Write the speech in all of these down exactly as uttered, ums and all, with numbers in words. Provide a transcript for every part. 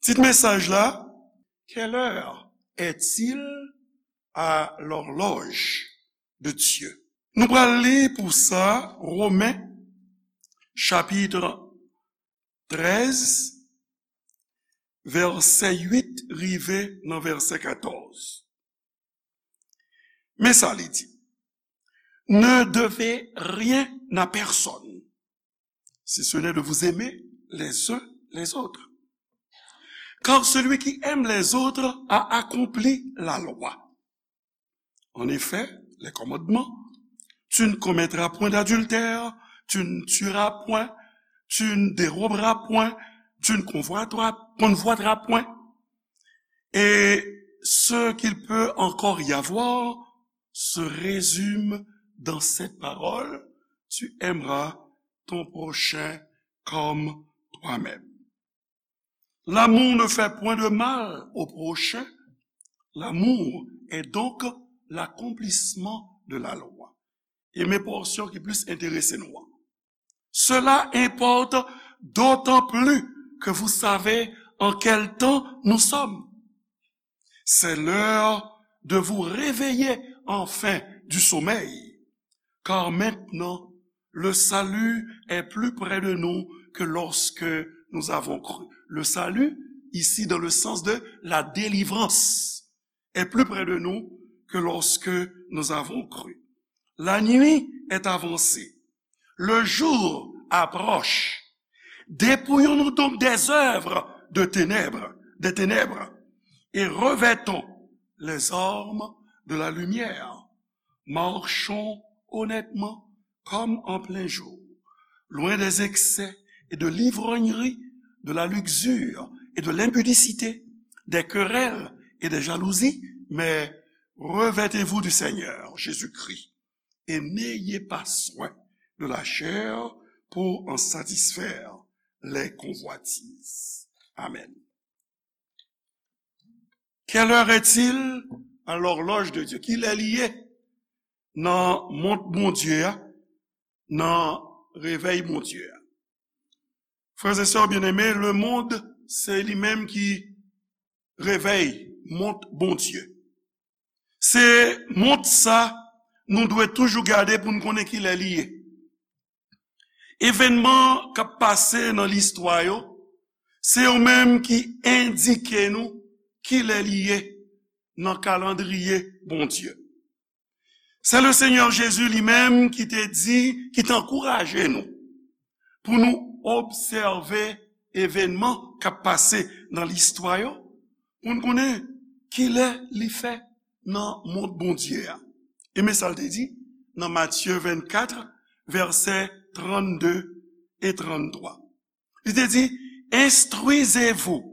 Tit mesaj la, Quelle heure est-il à l'horloge de Dieu? Nou pral li pou sa Women chapit trèz, vèsè uit rive nan vèsè katòz. Men sa li di, Ne devez rien à personne, si ce n'est de vous aimer les uns les autres. Car celui qui aime les autres a accompli la loi. En effet, les commandements, tu ne commettras point d'adultère, tu ne tueras point, tu ne déroberas point, tu ne convoiteras, convoiteras point. Et ce qu'il peut encore y avoir se résume dans cette parole, tu aimeras ton prochain comme toi-même. L'amour ne fait point de mal au prochain. L'amour est donc l'accomplissement de la loi. E men pòsyon ki plis enterese nou an. Cela importe d'autant plus que vous savez en quel temps nous sommes. C'est l'heure de vous réveiller enfin du sommeil, car maintenant le salut est plus près de nous que lorsque nous avons cru. Le salut, ici dans le sens de la délivrance, est plus près de nous que lorsque nous avons cru. La nuit est avancée, le jour approche. Dépouillons-nous donc des œuvres de ténèbres, des ténèbres, et revêtons les armes de la lumière. Marchons honnêtement comme en plein jour, loin des excès et de l'ivrognerie, de la luxure et de l'impudicité, des querelles et des jalousies, mais revêtez-vous du Seigneur Jésus-Christ et n'ayez pas soin de la chair pour en satisfaire les convoitises. Amen. Quelle heure est-il à l'horloge de Dieu? Kilè li ye nan mont Bondye a, nan revèy Bondye a? Frères et sœurs bien-aimés, le monde, se li menm ki revèy, mont Bondye. Se mont sa nou dwe toujou gade pou n konnen kilè li ye. Evènman k ap pase nan listwa yo, se yo menm ki endike nou kilè li ye nan kalandriye Bondye. Se le Senyè Jezi li menm ki te di, ki te ankouraje nou pou nou obsève evènman k ap pase nan listwa yo, pou n konnen kilè li fè nan mond Bondye a. E men sa l te di nan Matye vennkat, vèsè trannde e tranntwa. Li te di, Instruisez-vous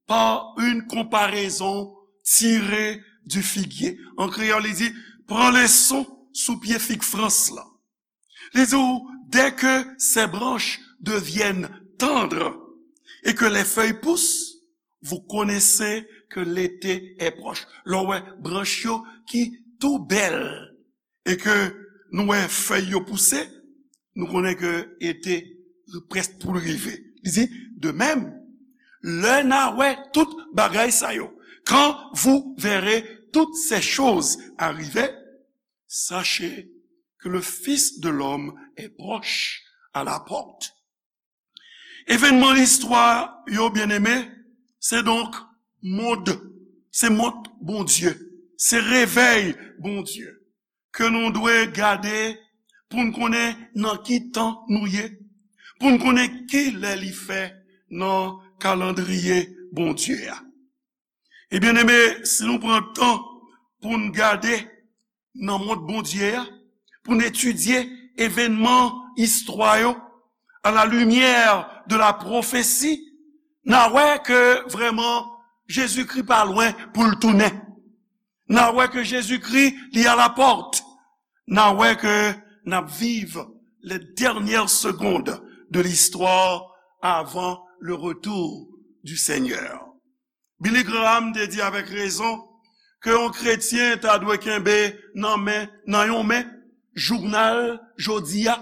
par une comparaison tirée du figuier. An kreyòl, li di, Pran leson sou pye fig frans lan. Li di w, Dès que ses branches deviennent tendres et que les feuilles poussent, vous connaissez que l'été est proche. Lè w wè branch yo ki tou bèl e ke nou wè fèy yo pouse, nou konnen ke ete prèsk pou l rive. Li di, De même, lè n a wè tout bagay sa yo, quand vous verrez toutes ces choses arriver, sachez que le Fils de l'homme est proche à la porte. Evènman listwa yo, byeneme, se donk mond, se mond Bondye, se revèy Bondye ke nou dwe gade pou n konnen nan ki tan nou ye, pou n konnen ki lè li fè nan kalandriye Bondye a. E byeneme, si nou pran tan pou n gade nan mond Bondye a, pou n etidye evènman istwa yo à la lumière de la prophétie, n a wè ke vrèman Jezikri pa lwen pou l tounen. N a wè ke Jezikri, li a la pòt. N a wè ke n ap viv les dernières secondes de l'histoire avant le retour du Seigneur. Billy Graham te di avèk rezon ke yon kretyen ta dwe kenbe nan men, nan yon men, jounal jodi a,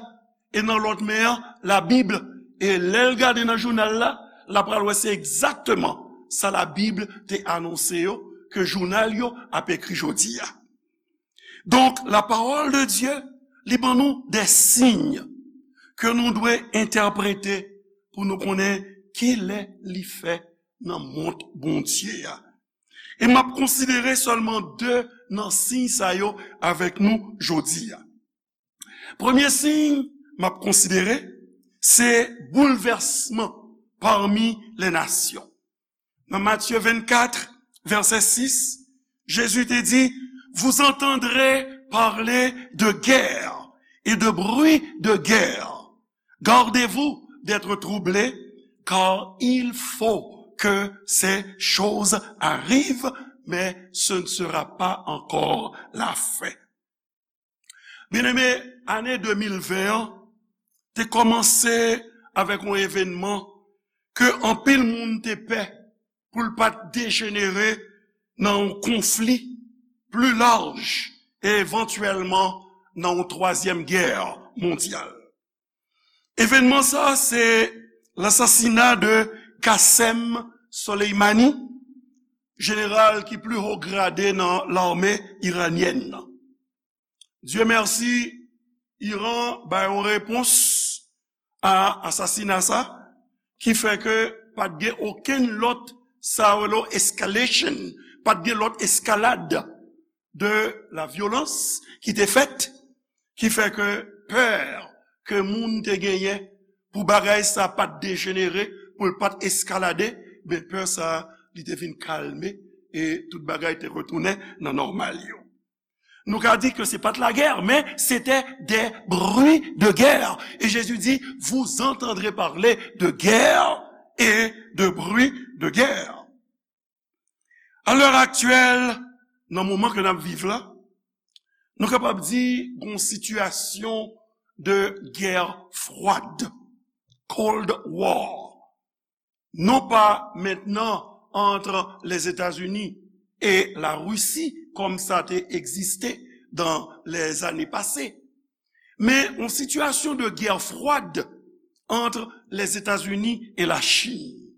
e nan lòt men an, Labib. E lè l gade nan jounal la, l ap pral wè se egzakteman sa Labib te anonse yo, ke jounal yo ap ekri jodi a. Donk, la parole de Dieu, li ban nou de siy ke nou dwe entèprete pou nou konnen kilè li fè nan mond Bondye a. E m ap konsidere sèlman de nan siy sa yo avèk nou jodi a. Premye siy m ap konsidere, se boulvèsman parmi les nations. Nan Matye vennkat, vèsè sis, Jezi te di, vous entendrez parler de guerre et de bruit de guerre. Gardez-vous d'être troublés, car il faut que ces choses arrivent, mais ce ne sera pas encore la fin. Byeneme, ane de mil ven an te kòmanse avèk yon evènman ke anpil moun te pè pou l pa t dejenere nan yon konfli pli laj e evantyèlman nan yon twazyèm gè mondyal. Evènman sa a se lasasina de Qasem Soleimani, jeneral ki pli wo grade nan lame iranyèn nan. Dye mèsi, Iran bay yon repons a asasina sa, ki fè ke pa t gen okenn lòt, sa yo rele escalation, pa t gen lòt eskalad de la vyolans ki te fèt, ki fè ke pè ke moun te genyen pou bagay sa pa t dejenere, pou l pa t eskalade, ben pè sa li te vin kalme e tout bagay te retounen nan nòmal yo. Nou ka di ke se pa t lagè, men se te de bri de gè. E Jezi di, vous entendrez parler de guerre et de bruit de guerre. A lè aktyèl, nan moman ke n ap viv la, nou kapab di gon sitiyasyon de guerre froide, Cold War. Non pas maintenant entre les États-Unis et la Russie, comme ça a existé dans les années passées, men yon sitiyasyon de guerre froide entre les États-Unis et la Chine.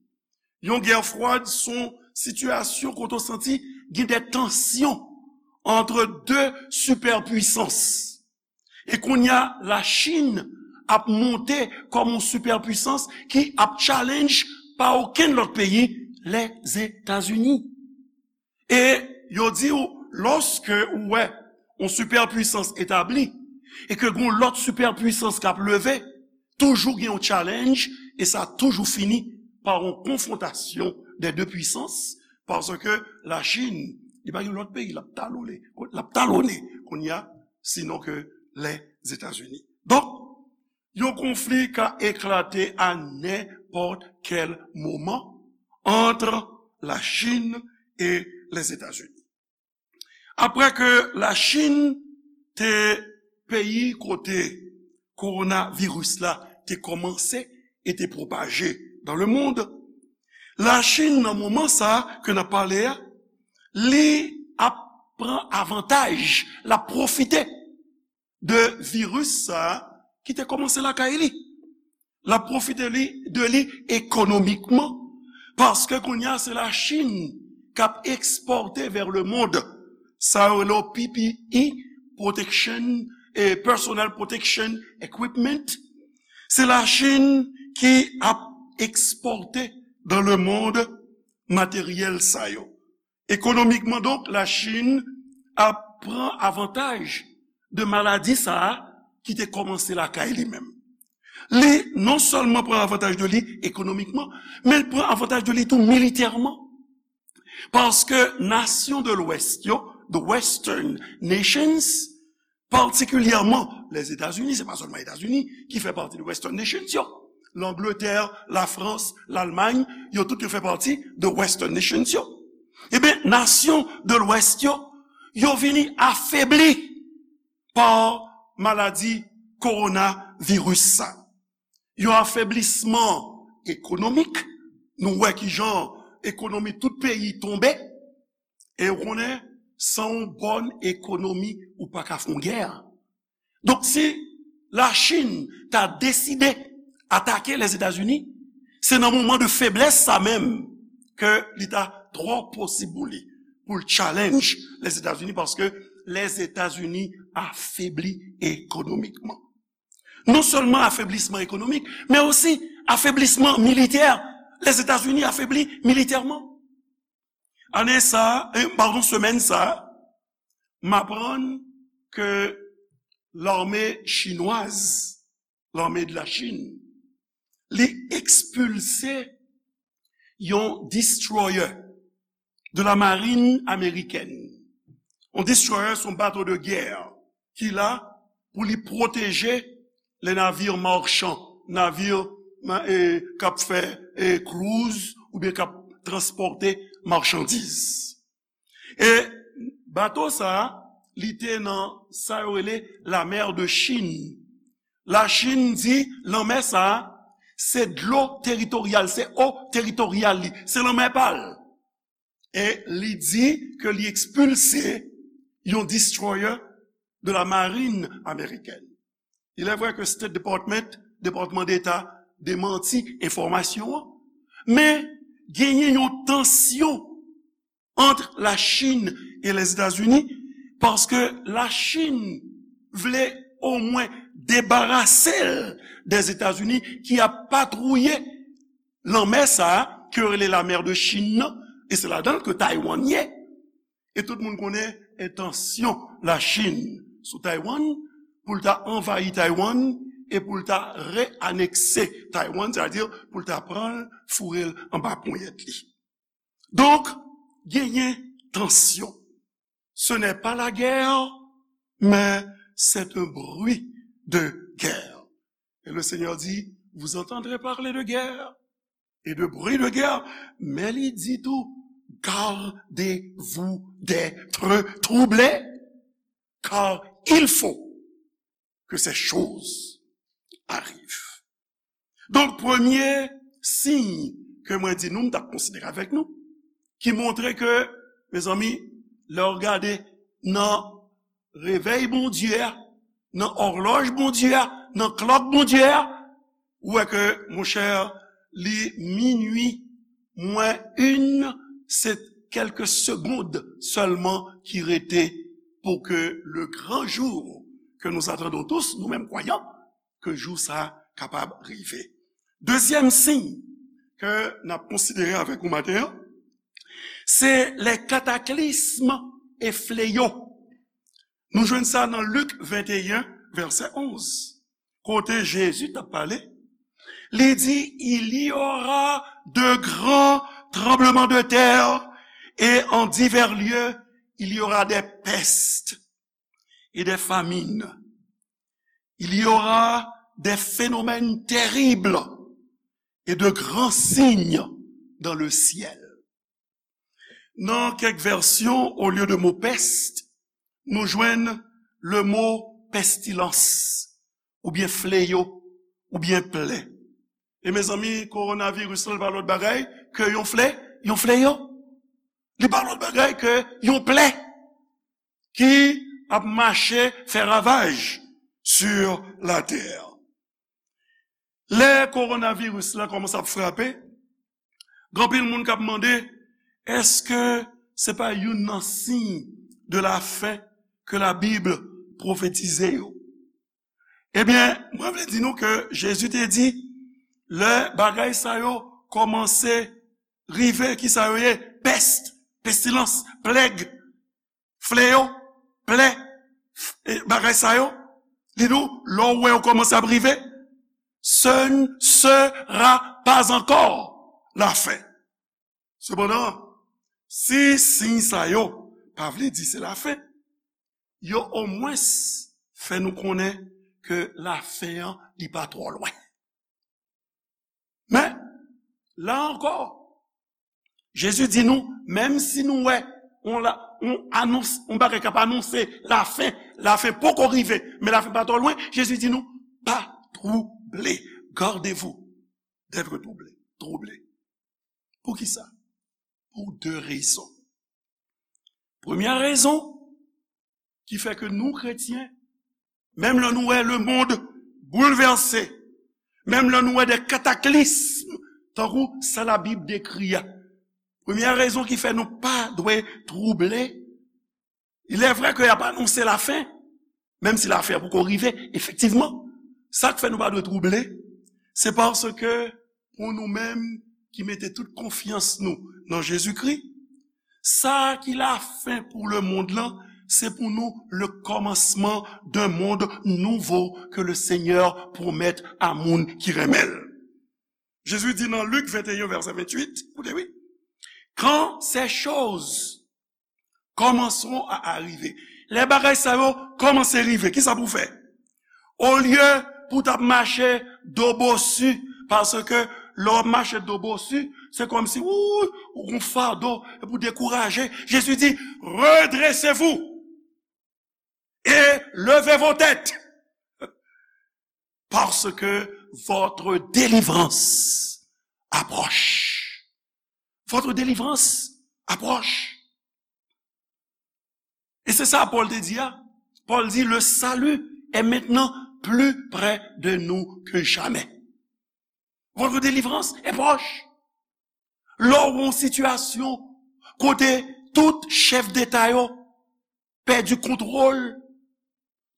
Yon guerre froide se yon sitiyasyon kote w santi gen de tansyon entre deux superpuissances. E kounye a, Lachin ap monte kòm yon sipèpwisans ki ap challenge pa okenn lòt peyi, Lèzetazini. E yo di w, lòske ou wè yon sipèpwisans etabli, e ke gen yon lòt sipèpwisans k ap leve, toujou gen yon challenge, e sa toujou fini pa yon konfwontasyon dè de pwisans, paske Lachin, li pa gen lòt peyi l ap talone, l ap talone kounye a, sinon ke Lèzetazini. Donk, yon konfli ka eklate a nenpòt kèl moman ant Lachin e Lèzetazini. Apre ke Lachin te peyi kote kowonaviris la te kòmanse e te pwopaje dans le monde, Lachin, nan moman sa a ke n ap pale a, li ap pran avantaj, l ap pwofite de viris sa a ki te kòmanse lakay li. L ap pwofite li, de li ekonomikman, paske kounye a se Lachin k ap ekspòte vers le monde sa yo rele P P E, protection, e personal protection equipment. Se Lachin ki ap ekspòte dans le monde materyèl sa yo. Ekonomikman, donk, Lachin ap pran avantaj de maladi sa a ki te kòmanse lakay li menm. Li non sèlman pran avantaj de li ekonomikman, men l pran avantaj de li tou militèman. Paske nasyon de Lwès yo, the Western nations, patikilyèman Lèzetazini, se pa sèlman Etazini ki fè pati de Western nations yo. Langletè, Lafrans, Lalmay, yo tout yo fè pati de Western nations yo. Ebyen, nasyon de Lwès yo, yo vini afebli pa maladi kowonaviris sa. Yon afeblisman ekonomik, nou wè kijan ekonomi tout peyi tonbe, e ou konnen, san yon bòn ekonomi, ou pa ka fè yon gè. Donk, si Lachin ta deside atake Lèzetazini, se nan moman de feblès sa menm ke li ta twò posib pou li, pou l challenge Lèzetazini, paske Lèzetazini afebli ekonomikman. Non sèlman afeblisman ekonomik, men osi afeblisman militè. Lèzetazini afebli militèman. Ane sa, eh, padon, semèn sa, m aprann ke lame chinwaz, lame de la Chine, li ekspilse yon destroyer de la marine américaine. Yon destroyer se yon bato de gè ki la pou li pwoteje le navire machan, navire ma- e, k ap fè e, cruise oubyen k ap transpòte machandiz. E bato sa a, li te nan sa yo rele la mer de Chine. Lachin di lanmè sa a, se dlo teritoryal, se eau teritoryal li, se lanmè pa l. E li di ke li ekspilse yon destroyer de la marine américaine. Il est vrai que State Department, Depatman Deta, demanti enfòmasyon an, men genyen yon tansyon ant Lachin e Lèzetazini, paske Lachin vle omwen debarase l dè Etazini ki ap patwouye lanmè sa a, ke yo rele la mer de Chine nan, e se ladan l ke Taiwan ye. E tout moun konnen entansyon Lachin sou Taiwan, pou l ta anvayi Taiwan, e pou l ta reanekse Taiwan, sètadi pou l ta pran l, foure l anba ponyèt li. Donk, genyen tansyon. Ce n'est pas la guerre, mais c'est un bruit de guerre. Et le Seigneur dit, vous entendrez parler de guerre et de bruit de guerre, men li di tou, gardez-vous d'être troublés, car il faut que ces choses arrivent. Donk, premye siy ke mwen di nou, m t ap konsidere avèk nou, ki montre ke, mezanmi, lè w gade nan revèy Bondye a, nan òlòj Bondye a, nan klòk Bondye a, ou wè ke, monchè, li minui mwen en, se kèlke segond sèlman ki rete pou ke le grand jour que nous attendons tous, nou menm kwayan, ke jou sa a kapab rive. Dezyèm siy ke n ap konsidere avèk ou maten an, se les cataclysmes et fléaux. Nou jwenn sa nan Lik venteyen, vèsè onz, kote Jezi t ap pale. Li di, il y aura de grands tremblements de terre et en divers lieux, il y aura des pestes et des famines. Il y aura des phénomènes terribles et de grands signes dans le ciel. Nan kèk vèsyon, olye de mo pèst, nou jwenn le mo pestilans, oubyen fleyo, oubyen plè. E mezanmi, kowonaviris la, li pa lòt bagay ke yon flè, yon fleyo. Li pa lòt bagay ke yon plè ki ap mache fè ravaj sur la terre. Lè kowonaviris la kòmanse ap frape, gen anpil moun k ap mande, èske se pa youn nan siy de la fen ke Labib pwofetize yo? Ebyen, mwen vle di nou ke Jezi te di, lè bagay sa yo kòmanse rive, ki sa yo ye? Pès, pestilans, plèg, fleyo, plè, f- e, bagay sa yo. Li di w, lè w wè yo kòmanse ap rive, ce ne sera pas encore la fin. Sepandan, si siy sa yo pa vle di se lafen, yo omwens fè nou konnen ke lafen an, li pa twò lwen. Men, la ankò, Jezi di nou, menm si nou wè on la, on anons, on bagay k ap anonse lafen, lafen poko rive, men lafen pa twò lwen, Jezi di nou, pa twouble, gardez-vous d'être troublé, troublé. Poukisa? Pou de rezon. Premyè rezon ki fè ke nou kretyen, menm lè nou wè lemonn boulvèse, menm lè nou wè de kataklism, tankou sa Labib dekri a, Premyè rezon ki fè nou pa dwe twouble, il est vrai que y ap anonse lafen, menm si lafen an poko rive, efektivman. Sa k fè nou pa dwe twouble, se paske pou nou menm ki mete tout konfyans nou nan Jezikri, sa ki lafen pou lemonn lan, se pou nou le commencement d'un monde nouveau que le Seigneur promet a moun ki renmen l. Jezi di nan Lik venteyen, vèsè venntuit, koute wi, quand ces choses commenceront à arriver. Lè bagay sa yo kòmanse rive, kisa pou w fè? Olye pou w t ap mache do bosi, paske lè w ap mache do bosi, se kòmsi ou, ou gon fado, epi w dekouraje. Jezi di, redressez-vous et levez vos têtes, parce que votre délivrance approche. Votre délivrance approche. E se sa Pòl te di a. Pòl di, le salut est maintenant plus près de nous que jamais. Votre délivrance est proche. Lè w yon sitiyasyon kote tout chèf deta yo pèdi kontwòl,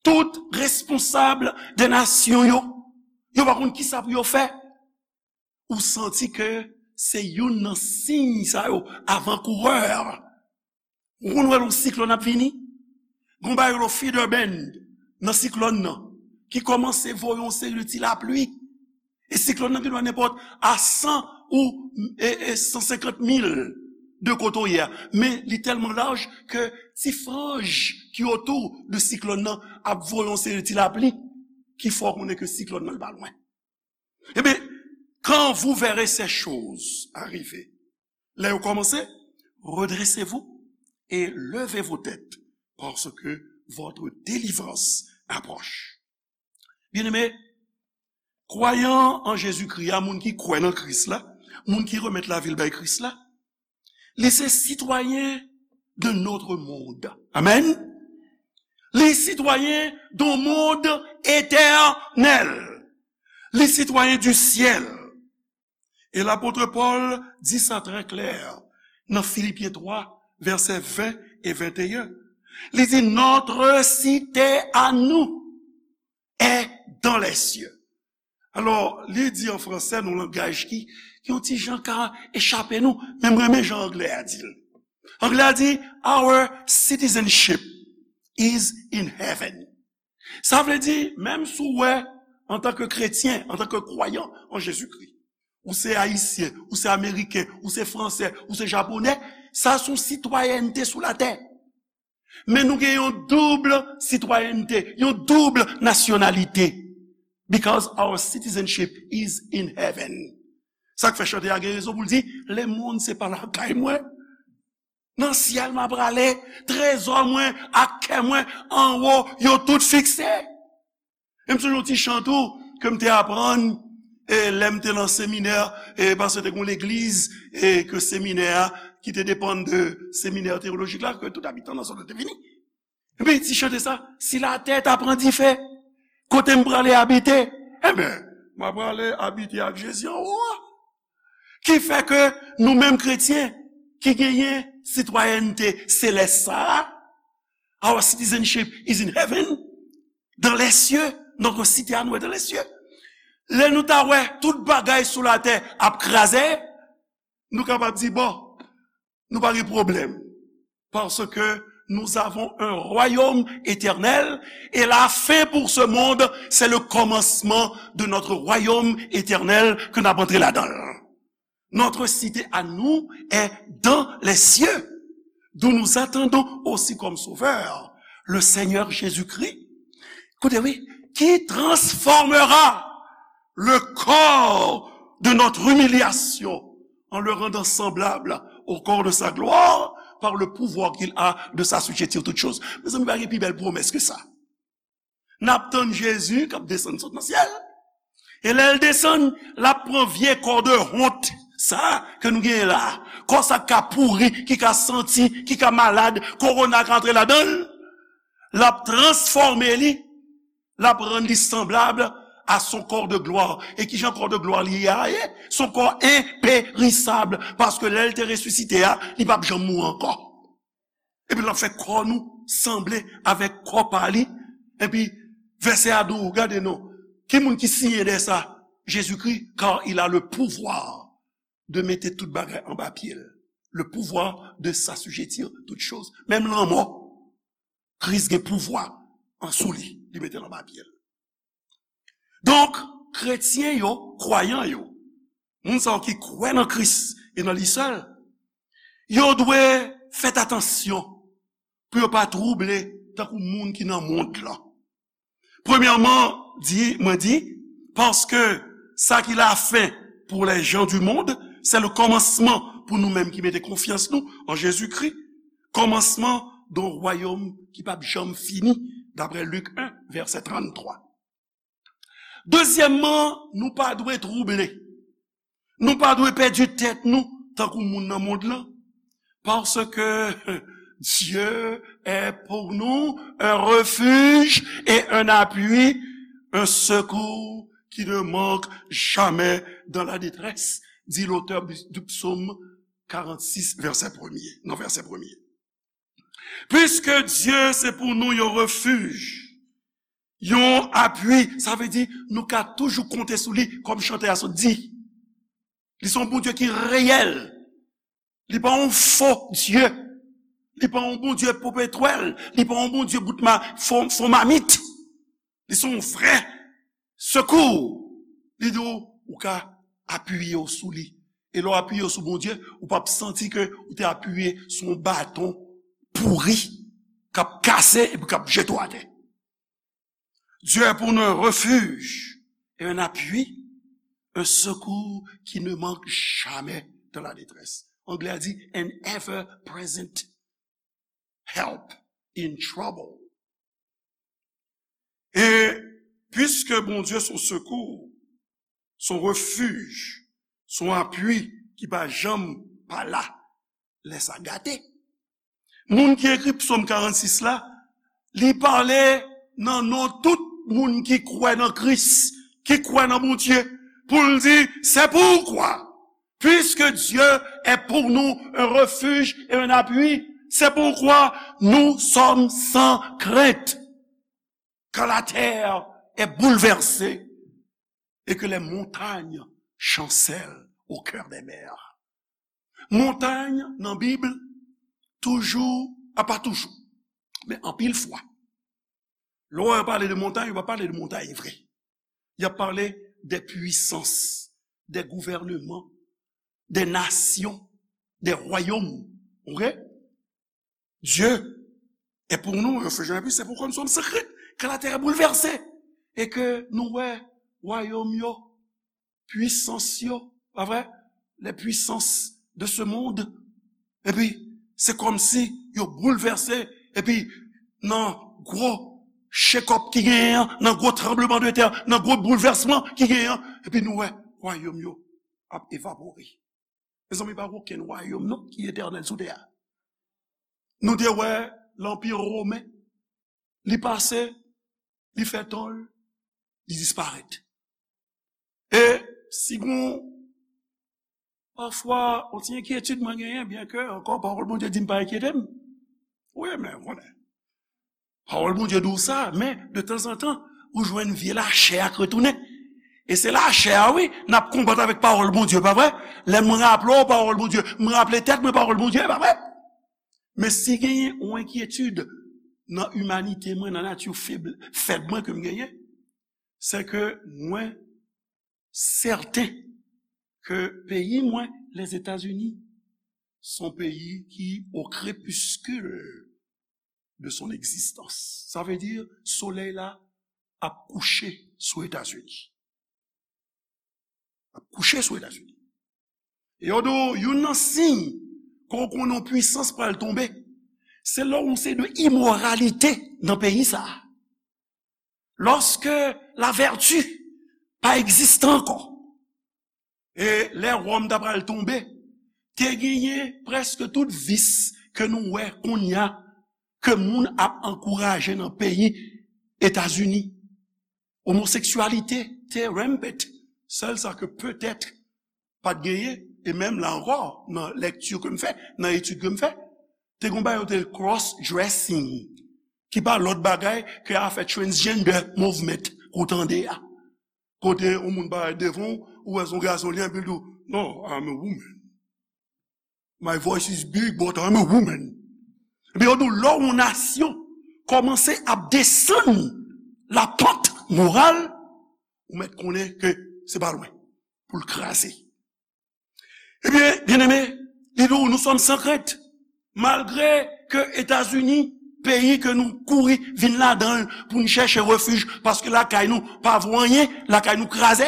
tout responsab de nasyon yo, yo pa konn kisa pou yo fè. Ou santi ke se youn nan siy sa yo, avankourè. Ou konn wè yon siklòn ap vini? Gon bagay yo rele feather band nan siklòn nan, ki kòmanse voye yon seri de ti lapli. E siklòn nan gendwa nenpòt a san ou, e, e san senkant mil de kote w ye a. Men li tèlman laj ke ti franj ki otou de siklòn nan ap voye yon seri de ti lapli ki fè w konnen ke siklòn nan li pa lwen. Ebyen, quand vous verrez ces choses arriver, lè yo kòmanse, redressez-vous et levez vos têtes, parce que votre délivrance approche. Byeneme, kwayan an Jezikri a, moun ki kwè nan Kris la, moun ki remèt lavi l bay Kris la, li se sitwayen de notre monde. Amen. Li sitwayen d'un monde éternel. Li sitwayen du ciel. E lapot Pòl di sa trè klè nan Filipyen twa, vèsè ven e venteyen. Li di, notre cité à nous est dans les cieux. Alò, li di an fransè, nan langaj ki, ki yon ti jan ka echape nou, men m renmen jan anglè a di l. Anglè a di, our citizenship is in heaven. Sa vle di, menm si w wè, antanke kretyen, antanke kwayan an Jezikri, ou se ayisyen, ou se ameriken, ou se fransè, ou se japonè, sa se yon sitwayènte sou latè. Men nou gen yon doub sitwayènte, yon doub nasyonalite. Because our citizenship is in heaven. Sa k fè chante a gen rezon pou l di, lemonn se pa lakay mwen. Nan syèl m a prale, trezò mwen ak kè mwen anwo, yo tout fikse. E m sonje yon ti chan tou ke m te aprann, e, lè m te nan seminè, e, paske te gen yon legliz, e, ke seminè a, ki te depann de seminè teyolojik la, ke tout abitan nan zòn nan te vini. Epi ti chante sa, si latè ta pran dife, kote m prale abite? Enben, m a prale abite ak Jezi anwo a. Ki fè ke nou menm kretyen ki genyen sitwayènte selès sa a, our citizenship is in heaven, dans les cieux, notre cité à nous est dans les cieux. Lè nou ta wè tout bagay sou latè ap kraze, nou kapab di, bon, nou pa gen pwoblèm. Parce que nous avons un royaume éternel et la fin pour ce monde, c'est le commencement de notre royaume éternel ke n ap antre ladan l. Notre cité à nous est dans les cieux, d'où nous attendons aussi comme sauveur le Seigneur Jésus-Christ. Koute, wi, qui transformera le corps de notre humiliation en le rendant semblable au corps de sa gloire par le pouvoir qu'il a de s'assujettir toutes choses. Mezanmi, pa gen pi bèl pwomès ke sa. N ap tann Jezi k ap desann sot nan syèl. E lè l desann, l ap pran vye kò de wont sa ke nou genyen la a. Kò sa k ka pouri, ki ka santi, ki ka malad, kowona ka antre ladan l. L ap transfòme li, l ap rann li sanblab à son corps de gloire. E kijan kò de glwa li a ye? Son kò enperisab, paske lè l te resisite a, li p ap janm mouri ankò. Epi l ap fè kò nou sanble avèk kò pa li. Epi vèsè a di w, gade non, ki moun ki siyen dèyè sa? Jezikri, car il a le pouvoir de mettre tout bagay anba pye l. Le pouvoir de s'assujettir toutes choses. Menm lanmò, Kris gen pouvwa an sou li, li mete l anba pye l. Donk, kretyen yo, kwayan yo, moun sa yo ki kwè nan Kris e nan li sèl, yo dwe fè atansyon pou yo pa twouble tankou moun ki nan mond lan. Premyèman, di, mwen di, paske sa ki la fin pour les gens du monde, c'est le commencement pou nou menm ki mete konfyans nou an Jezikri, kòmansman d'un royaume ki p ap janm fini, daprè Lik en, vèsè tranntwa. Dezyèmman, nou pa dwe twouble. Nou pa dwe pèdi tèt nou tankou moun nan mond lan. Parce que Dieu est pour nous un refuge et un appui, un secours qui ne manque jamais dans la détresse, dit l'auteur du psaume quarante-six, verset premier, non, verset premier. Puisque Dieu, c'est pour nous un refuge, yon apui, sa vle di nou ka toujou konte sou li, kòm chantè a sot di. Li se yon Bondye ki reyèl. Li pa yon fo Dye. Li pa yon Bondye popetwèl. Li pa yon Bondye bout ma, fo, fo mamit. Li se yon vrè sekou. Li di w, ou ka apiye w sou li. E lè w apiye w sou Bondye, ou p ap santi ke ou te apiye sou yon baton pouri k ap kase epi k ap jete w atè. Dieu est pour nous un refuge et un appui, un secours qui ne manque jamais dans la détresse. Anglè a di, an ever present help in trouble. E piske Bondye se yon sekou, se yon refij, se yon apui ki pa janm pa la lè sa gate. Moun ki ekri Psòm karannsis la, li pale nan non tout moun ki kwè nan Kris, ki kwè nan Bondye, pou l di, c'est pourquoi, puisque Dieu est pour nous un refuge et un appui, c'est pourquoi nous sommes sans crainte quand la terre est bouleversée et que les montagnes chancellent au cœur des mers. Montay nan Bib, toujou, a pa toujou, men anpil fwa, lè w wè yo pale de montay, yo pa pale de montay vre. Y ap pale de pwisans, de gouvènman, de nasyon, de wayòm. Ok? Dieu est pour nous un refuge et un appui, c'est pourquoi nous sommes sans crainte quand la terre est bouleversée. E ke nou wè wayòm yo, pwisans yo, pa vre? Les puissances de ce monde. Epi, se kòmsi yo boulvèse, epi nan gwo shake-up ki genyen an, nan gwo tranbleman de tè, nan gwo boulvèsman ki genyen an, epi nou wè wayòm yo ap evapore. Mezanmi, pa gen okenn wayòm non ki etènèl sou tè a. Nou te wè lanpi women, li pase, li fè tan l, li disparèt. E si gon, pafwa, yon ti enkyetid mwen genyen, byen ke ankò pawòl Bondye di m pa enkyete m. Wi, men ou konnen. Pawòl Bondye di w sa, men de tanzantan, ou jwenn vye lachè a k retounen. E se lachè a, wi, n ap konbat avèk pawòl Bondye, pa vre? Lè mwen raple w pawòl Bondye, mwen raple tèt mwen pawòl Bondye, pa vre? Men si genyen yon enkyetid nan imanite mwen, nan nati feb, fèb mwen ke m genyen, se ke mwen sèten ke peyi mwen, Lèzetazini, se yon peyi ki o krepiskil de son egzistans. Sa vle di, solèy la ap kouche sou Etazini. Ap kouche sou Etazini. E yo di w, youn nan siy ke w konnen yon pwisans pral tonbe, se lè yon seri de imoralite nan peyi sa a. Lòske lavèti pa egziste ankò, e lè Wòm ta pral tonbe, te genyen prèske tout vis ke nou wè kounye a ke moun ap ankouraje nan peyi Etazini. Omoseksyalite te rampant. Sèl sa ke petèt pa t genyen, e menm la ankò, nan lèkti ke m fè, nan etid ke m fè, te gen yon bagay yo te rele cross dressing, ki pa lòt bagay ke afè transgender movement ke w tande a. Kote yon moun parèt devan w, ou wè se yon gason li, epi l di w, "No, I'm a woman. My voice is big, but I'm a woman." Epi yo di w, lè yon nasyon kòmanse ap desann lapant moral, ou mèt konnen ke se pa lwen pou l kraze. Ebyen, byeneme, li di w, nous sommes sans crainte. Malgre ke Etazini, peyi ke nou kouri vin ladan l pou n chèche refij, paske lakay nou pa vo anyen, lakay nou kraze,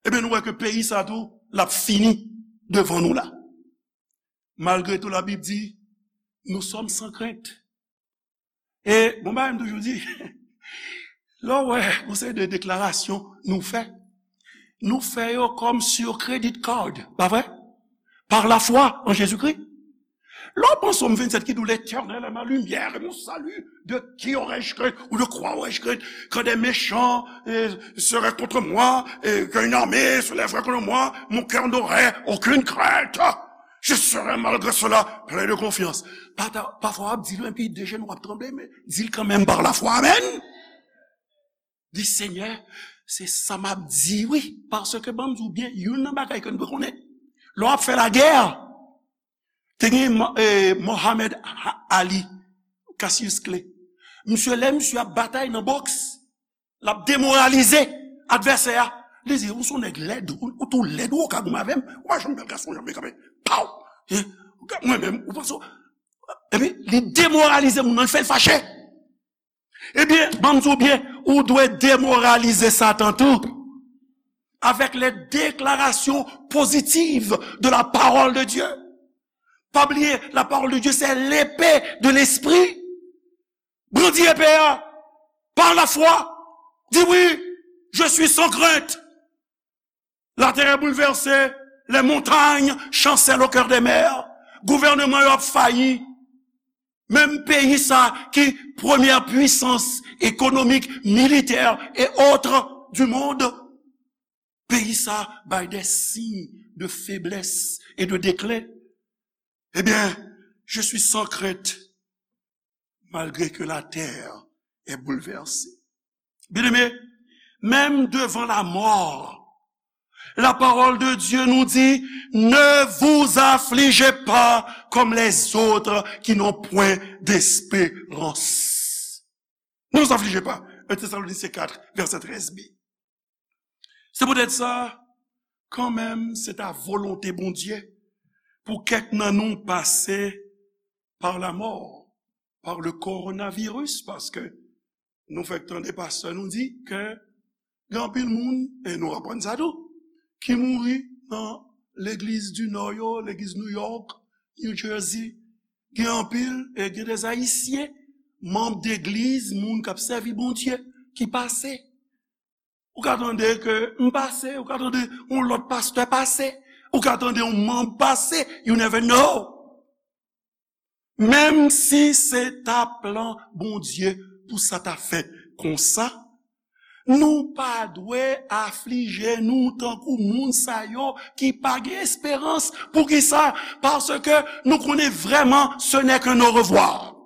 ebyen, nou wè ke peyi sa tou, l ap fini devan nou la. Malgre tou, Labib di, nous sommes sans crainte. E bon bagay m toujou di, lè w wè yon seri de deklarasyon nou fè, nou fè yo kòm sur credit card, pa vre? Par la foi en Jésus-Christ. Lè w pran Sòm vennsèt ki di w, L'Éternel est ma lumière et mon salut, de qui aurais-je crainte ou de quoi aurais-je crainte? Quand des méchants euh, seraient contre moi, et qu'une armée se lèverait contre moi, mon cœur n'aurait aucune crainte. Je serai malgré cela plein de confiance. Pafwa w ap di l, epi de jenou w ap tranble, men di l kanmenm par la foi. Amen. Di, Senyè, se sa m ap di, wi. Paske, ban m di w byen, youn nan bagay ke n dwe konnen, lè w ap fè lagè, te gen Mo- eh, Mohamed Ha- Ali, Cassius Clay. Misye, lè misye ap batay nan bòks, l ap demoralize advèsè a. Li di, "Ou se yon nèg lèd, ou, ou tou lèd, ou ka goumen avè m, ou pa janm bèl gason, janm kanpe, paw! Hein? Mwen menm, ou panse w-" Epi, li demoralize moun nan, li fè l fache. Ebyen, ban m di w byen, ou dwe demoralize Satan tou, avec les déclarations positives de la parole de Dieu. Pa bliye, la parole de Dieu, c'est l'épée de l'esprit. Brandi epe a, par la foi, di, "Oui, je suis sans crainte." Latè est bouleversée, les montagnes chancellent au cœur des mers. Gouvènman yo ap fayi. Menm peyi sa ki premyè pwisans ekonomik, militè e otre du monde, peyi sa bay des signes de faiblesse et de déclin. Eh bien, je suis sans crainte, malgré que la terre est bouleversée. Bien-aimés, même devant la mort, la parole de Dieu nous dit, ne vous affligez pas comme les autres qui n'ont point d'espérance. Ne vous affligez pas. un Thessaloniciens quatre, verset treize b. Se poutèt sa, kanmenm, se ta volonte Bondye pou kèk nan nou pase par la mort, par le coronavirus, paske nou fèk tande pastè nou di ke gen anpil moun, e nou aprann sa tou, ki mouri nan legliz di Nò yo, legliz New York, New Jersey. Gen anpil, e gen de Ayisyen, manm degliz, moun k ap sèvi Bondye, ki pase. Ou ka tande ke m pase, ou ka tande yon lòt pastè pase, ou ka tande yon manm pase, you never know. Menm si se ta plan Bondye pou sa ta fèt konsa, nou pa dwe aflije nou tankou moun sa yo ki pa gen esperans. Poukisa? Paske nou konnen vrèman, ce n'est qu'un au revoir.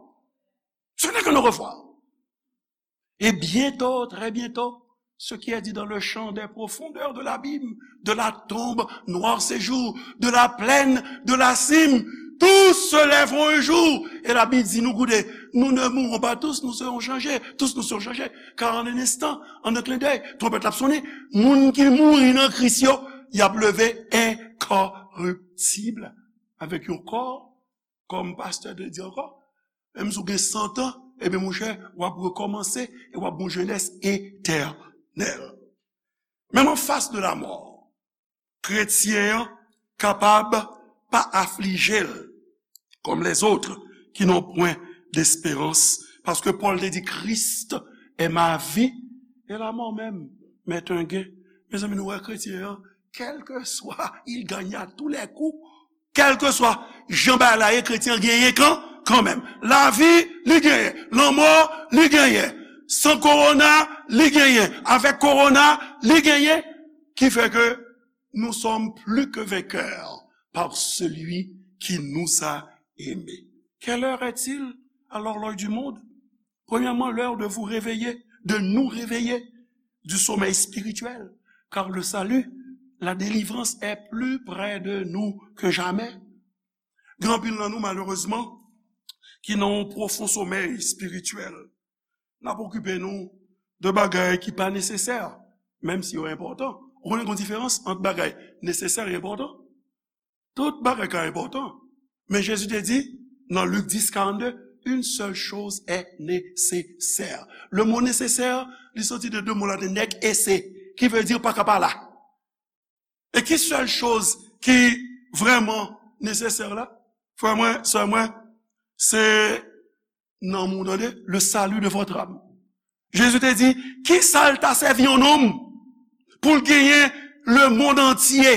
Ce n'est qu'un au revoir. Et bientôt, très bientôt, ce qui est dit dans le chant des profondeurs de l'abîme, de la tombe, noir séjour, de la plaine, de la cime, tous se lèveront un jour. E Labib di nou, koute, nous ne mourrons pas tous, nous serons changés, tous nous serons changés. Car en un instant, en un clin d'œil, twonpèt la ap sonnen, moun ki mouri nan Kris yo, y ap leve enkoriptib, avèk yon kò kòm pastè te di ankò, menm si w gen san tan, ebyen, monchè, w ap rekòmanse e w ap gen yon jenès etènèl. Menm anfas de lamò, kretyen an kapab pa aflije l comme les autres qui n'ont point d'espérance. Paske Pòl te di, Christ est ma vie et la mort même m'est un gain. Mezanmi, nou wè kretyen an, quel que soit, il gagne à tous les coups. Kèlkeswa jan bagay la ye, kretyen an genyen kan, kanmenm. Lavi, li genyen. Lanmò, li genyen. San kowona, li genyen. Avèk kowona, li genyen. Qui fait que nous sommes plus que vainqueurs par celui qui nous a aimés. Quelle heure est-il à l'horloge du monde? Premièrement, l'heure de vous réveiller, de nous réveiller du sommeil spirituel, car le salut, la délivrance est plus près de nous que jamais. Gen anpil nan nou, malerezman, ki nan yon pwofon somèy espirityèl. N ap okipe nou de bagay ki pa nesesè, menm si yo enpòtan. Ou konnen gen yon diferans ant bagay nesesè e enpòtan? Tout bagay ka enpòtan. Men Jezi te di, nan Lik dis karannde, une seule chose est nécessaire. Le mot nécessaire, li soti de de mo laten, nec esse, ki vle di pa ka pa la. E ki sèl choz ki vrèman nesesè la? Frè mwen, sè mwen, se nanm ou, tande, le salut de votre âme. Jezi te di, ki sa l ta sèvi yon nonm pou l genyen lemonn antye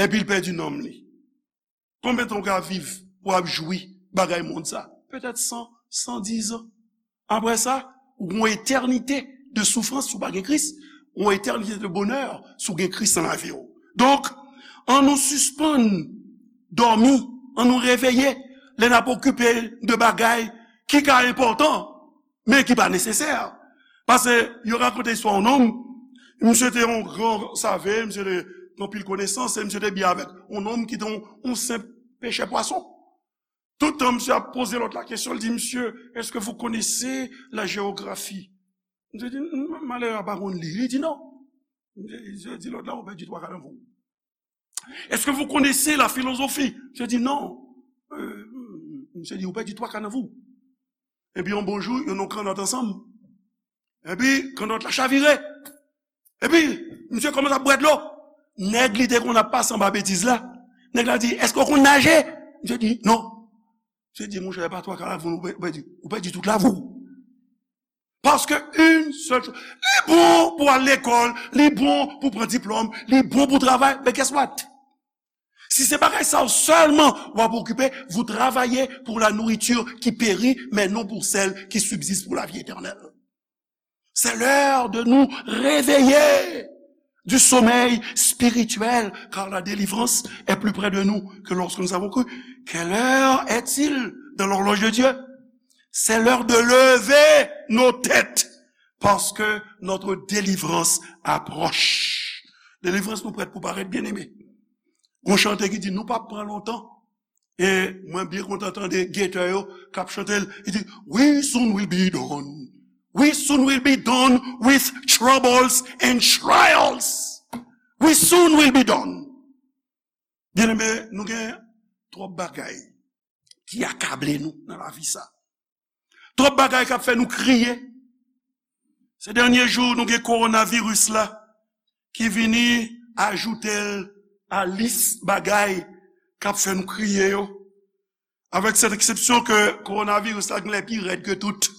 epi l pèdi nanm li? Konbyen tan w ka viv pou w ap jwi bagay mond sa? Petèt san, san diz an. Apre sa, ou gon etènite de soufrans si w pa gen Kris, ou gon etènite de bonè si w gen Kris nan lavi w. Donk, ann nou sispann dòmi, ann nou reveye lè n ap okipe de bagay ki ka enpòtan, men ki pa nesesè. Paske yo rakonte istwa yon nonm, misye te yon gran save, misye te gen anpil konesans, e misye te byen avèk yon nonm ki te yon, yon senp pechè pwason. Tout tan misye ap poze lòt la kesyon, li di, monsieur, est-ce que vous connaissez la géographie? Misye di, malere a pa konn li. Li di, non. Misye di lòt la, ou pèdi twa ka nan vou. Est-ce que vous connaissez la philosophie? Misye di, non. Euh, misye di, ou pèdi twa ka nan vou. Epi yon bon jou, yo nan yon kannòt ansanm. Epi kannòt la chavire. Epi misye kòmanse ap bwè dlo. Nèg li te konn ap pase anba betiz la, nèg la di, èske w konn naje? Misye di, non. Misye di, monchè, pa twa ka lavi w, ou pèdi, ou pèdi tout lavi w. Paske yon sèl choz, li bon pou al lekòl, li bon pou pran diplòm, li bon pou travay, men guess what? Si se bagay sa yo sèlman w ap okipe, vous travaillez pour la nourriture qui périt, mais non pour celle qui subsiste pour la vie éternelle. C'est l'heure de nous réveiller du sommeil spirituel, car la délivrance est plus près de nous que lorsque nous avons cru. Quelle heure est-il dans l'horloge de Dieu? C'est l'heure de lever nos têtes, parce que notre délivrance approche. Delivrans nou prèt pou parèt, byeneme. Gon chante ki di, nou p ap pran lontan. E mwen byen kontan tande getè yo k ap chante l. Li di, we soon will be done. We soon will be done with troubles and trials. We soon will be done. Byeneme, nou gen twòp bagay ki akable nou nan lavi sa. Twòp bagay k ap fè nou kriye. Se dènye jou, nou gen kowonaviris la ki vini ajoute l a lis bagay k ap fè nou kriye yo. Avèk sèt eksepsyon ke kowonaviris la genlè pi rèd ke tout.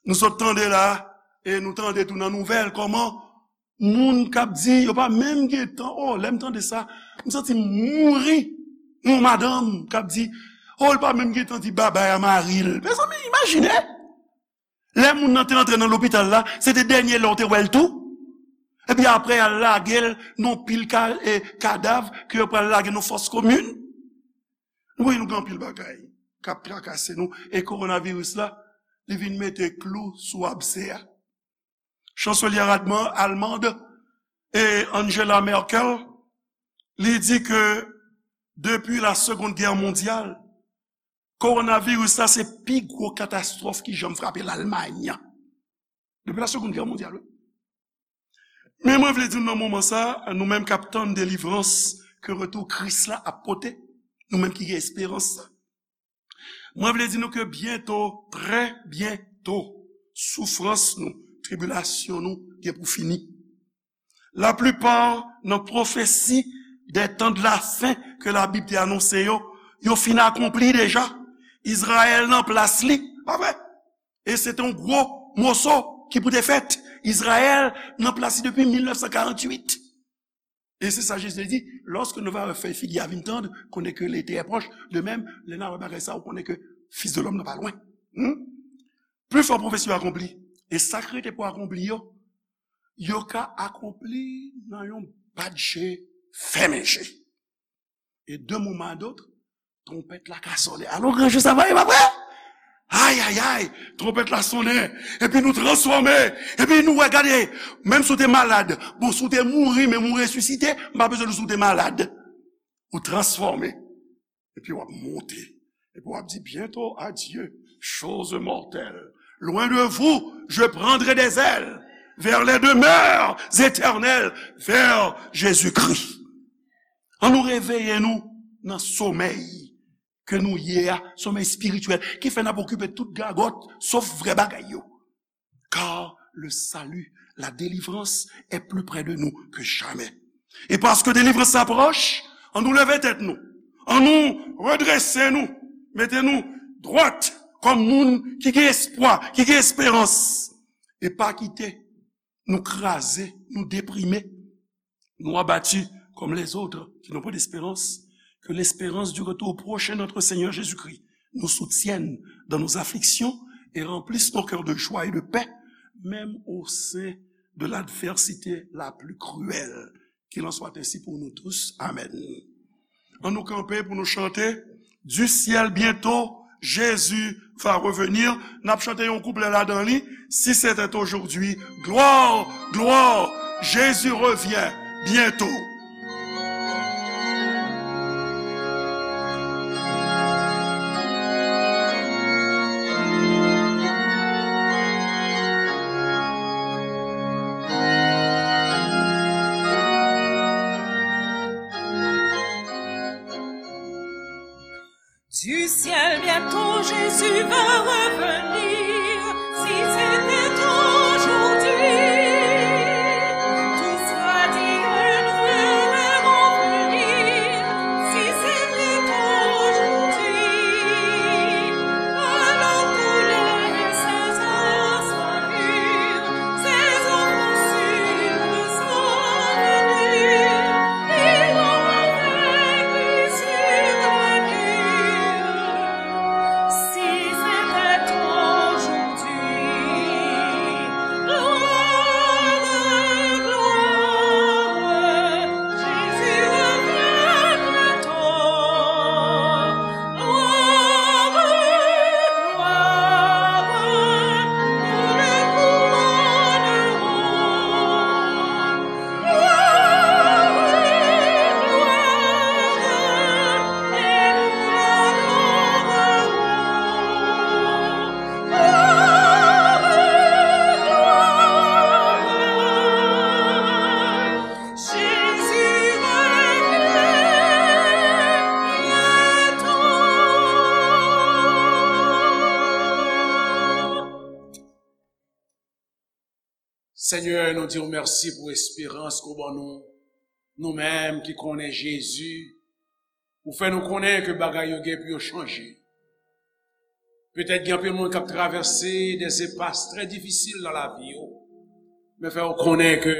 Nou sot tande la, e nou tande tou nan nouvèl, kòman moun k ap di, yo pa menm gen tan, oh, lè m tande sa, m santi m mouri. Yon madanm k ap di, oh, l pa menm gen tan di babay a mari l. Mezanmi, imajine! Lè moun nan te antre nan lopital la, se te dènye lè w te wè l tou. Epi apre, y al lage l nan pil ka, e, kadav ke yo pral lage nan fòs komin. Wi, nou gen anpil bagay k ap trakase nou. E kowonaviris la, li vin mete klou sou abse a. Chanselyè alman, almand e Angela Merkel, li di ke depi la Seconde Guerre mondiale, kowonaviris la se pi gwo katastwòf ki janm frape Lalmany. Depi la Seconde Guerre mondiale, wi. Men mwen vle di nou nan moman sa, nou menm k ap tann delivrans ke retou Kris la ap pote, nou menm ki gen esperans sa. Mwen vle di nou ke byento, trè byento, soufrans nou, tribilasyon nou gen pou fini. Laplipa nan pwofesi des temps de la fin ke Labib te anonse yo, yo fin akonpli deja. Izrayèl nan plas li, pa vre? E se te yon gwo moso ki pou te fèt. Izrayèl nan plas li depi mil nèf san karanntuit. E se sa Jezi te di, lorsque nous verrons le feuille figuière vin tendre, connais que l'été est proche. De même, lè n a wè bagay sa, ou konnen ke Fils de l'homme nan pa lwen. Hmm? Pli fò pwofesi yo akonpli. E sa k rete pou akonpli yo, yo ka akonpli nan yon bat je, fèmen je. E de moman a dot, twonpèt la ka sonnen. Alò, gran jou sa va ye, pa vre? Ay, ay, ay, twonpèt la sonnen. Epi nou transfòme. Epi nou wè, gade, menm si w te malad, bon, si w te mouri, men ou resisite, m pa bezwen di w si w te malad. Ou transfòme. Epi w ap monte. Epi w ap di, bientôt, adieu, chose mortelle. Loin de vous, je prendrai des ailes vers les demeures éternelles, vers Jésus-Christ. An nou reveye nou nan somèy ke nou ye a, somèy espirityèl, ki fè n ap okipe tout gagòt, sof vrè bagay yo. Car le salut, la délivrance est plus près de nous que jamais. E paske delivrans la pwòch, an nou leve tèt nou, an nou redrese nou, mete nou dwat kòm moun ki gen espwa, ki gen esperans. E pa kite nou kraze, nou deprime, nous abattus comme les autres qui n'ont pas d'espérance, que l'espérance du retour prochain de notre Seigneur Jésus-Christ nous soutienne dans nos afflictions et remplisse nos cœurs de joie et de paix, même au sein de l'adversité la plus cruelle. Qu'il en soit ainsi pour nous tous. Amen. An nou kanpe pou nou chante, Du ciel bientôt, Jésus va revenir. N ap chante yon kouplè ladan li. Si c'était aujourd'hui, gloire, gloire, Jésus revient bientôt. Du ciel bientôt Jésus va revenir. Si c'était aujourd'hui, tout soit dit et nous le verrons venir. Si c'était aujourd'hui, alors tous les saints soient mûrs, ces enfants sûrs sont venus. Si c'était aujourd'hui, gloire, gloire, Jésus revient bientôt. Gloire, gloire, nous le couronnerons. Senyè, nou di w mèsi pou esperans ke w ban nou. Nou menm ki konnen Jezi, ou fè nou konnen ke bagay yo gen pou yo chanje. Petèt gen anpil moun k ap travèse de epas trè difisil nan lavi yo, men fè yo konnen ke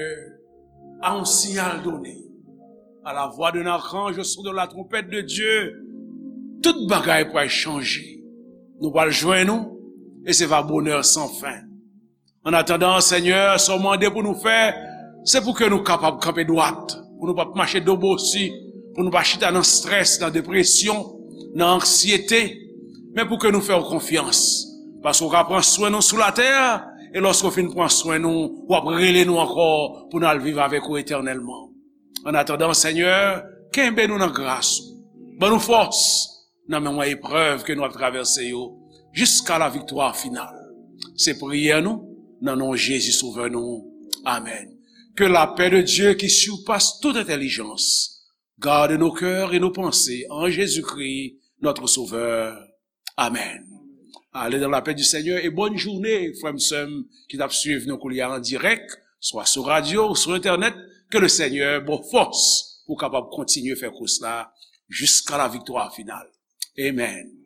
à un signal donné, à la voix d'un archange, au son de la trompette de Dieu, tout bagay pral chanje. Nou pral jwenn ou, e se va bonè san fen. An atandan, Senyè, sa w mande pou nou fè, se pou ke nou kapab kanpe dwat, pou nou pa mache do bosi, pou nou pa chita nan estrès, nan depresyon, nan anksyete, men pou ke nou fè w konfyans. Paske w ka pran swen nou sou latè, e lòske w fin pran swen nou, w ap rele nou ankò pou n al viv avèk ou etènèlman. An atandan, Senyè, kenbe nou nan gras ou. Ban nou fòs nan moman eprèv ke nou ap travèse yo, jiska la viktwa final. Se priyè nou, nan non Jezi Sovè nou. Amèn. Que la paix de Dieu qui surpasse toute intelligence garde nos cœurs et nos pensées en Jésus-Christ, notre Sauveur. Amen. Allez dans la paix du Seigneur et bonne journée, frè m, sè m, ki t ap swiv nou koulye a an dirèk, swa sou radyo ou sou entènèt. Ke le Senyè ba w fòs pou w kapab kontinye fè kous la jiska la viktwa final. Amen.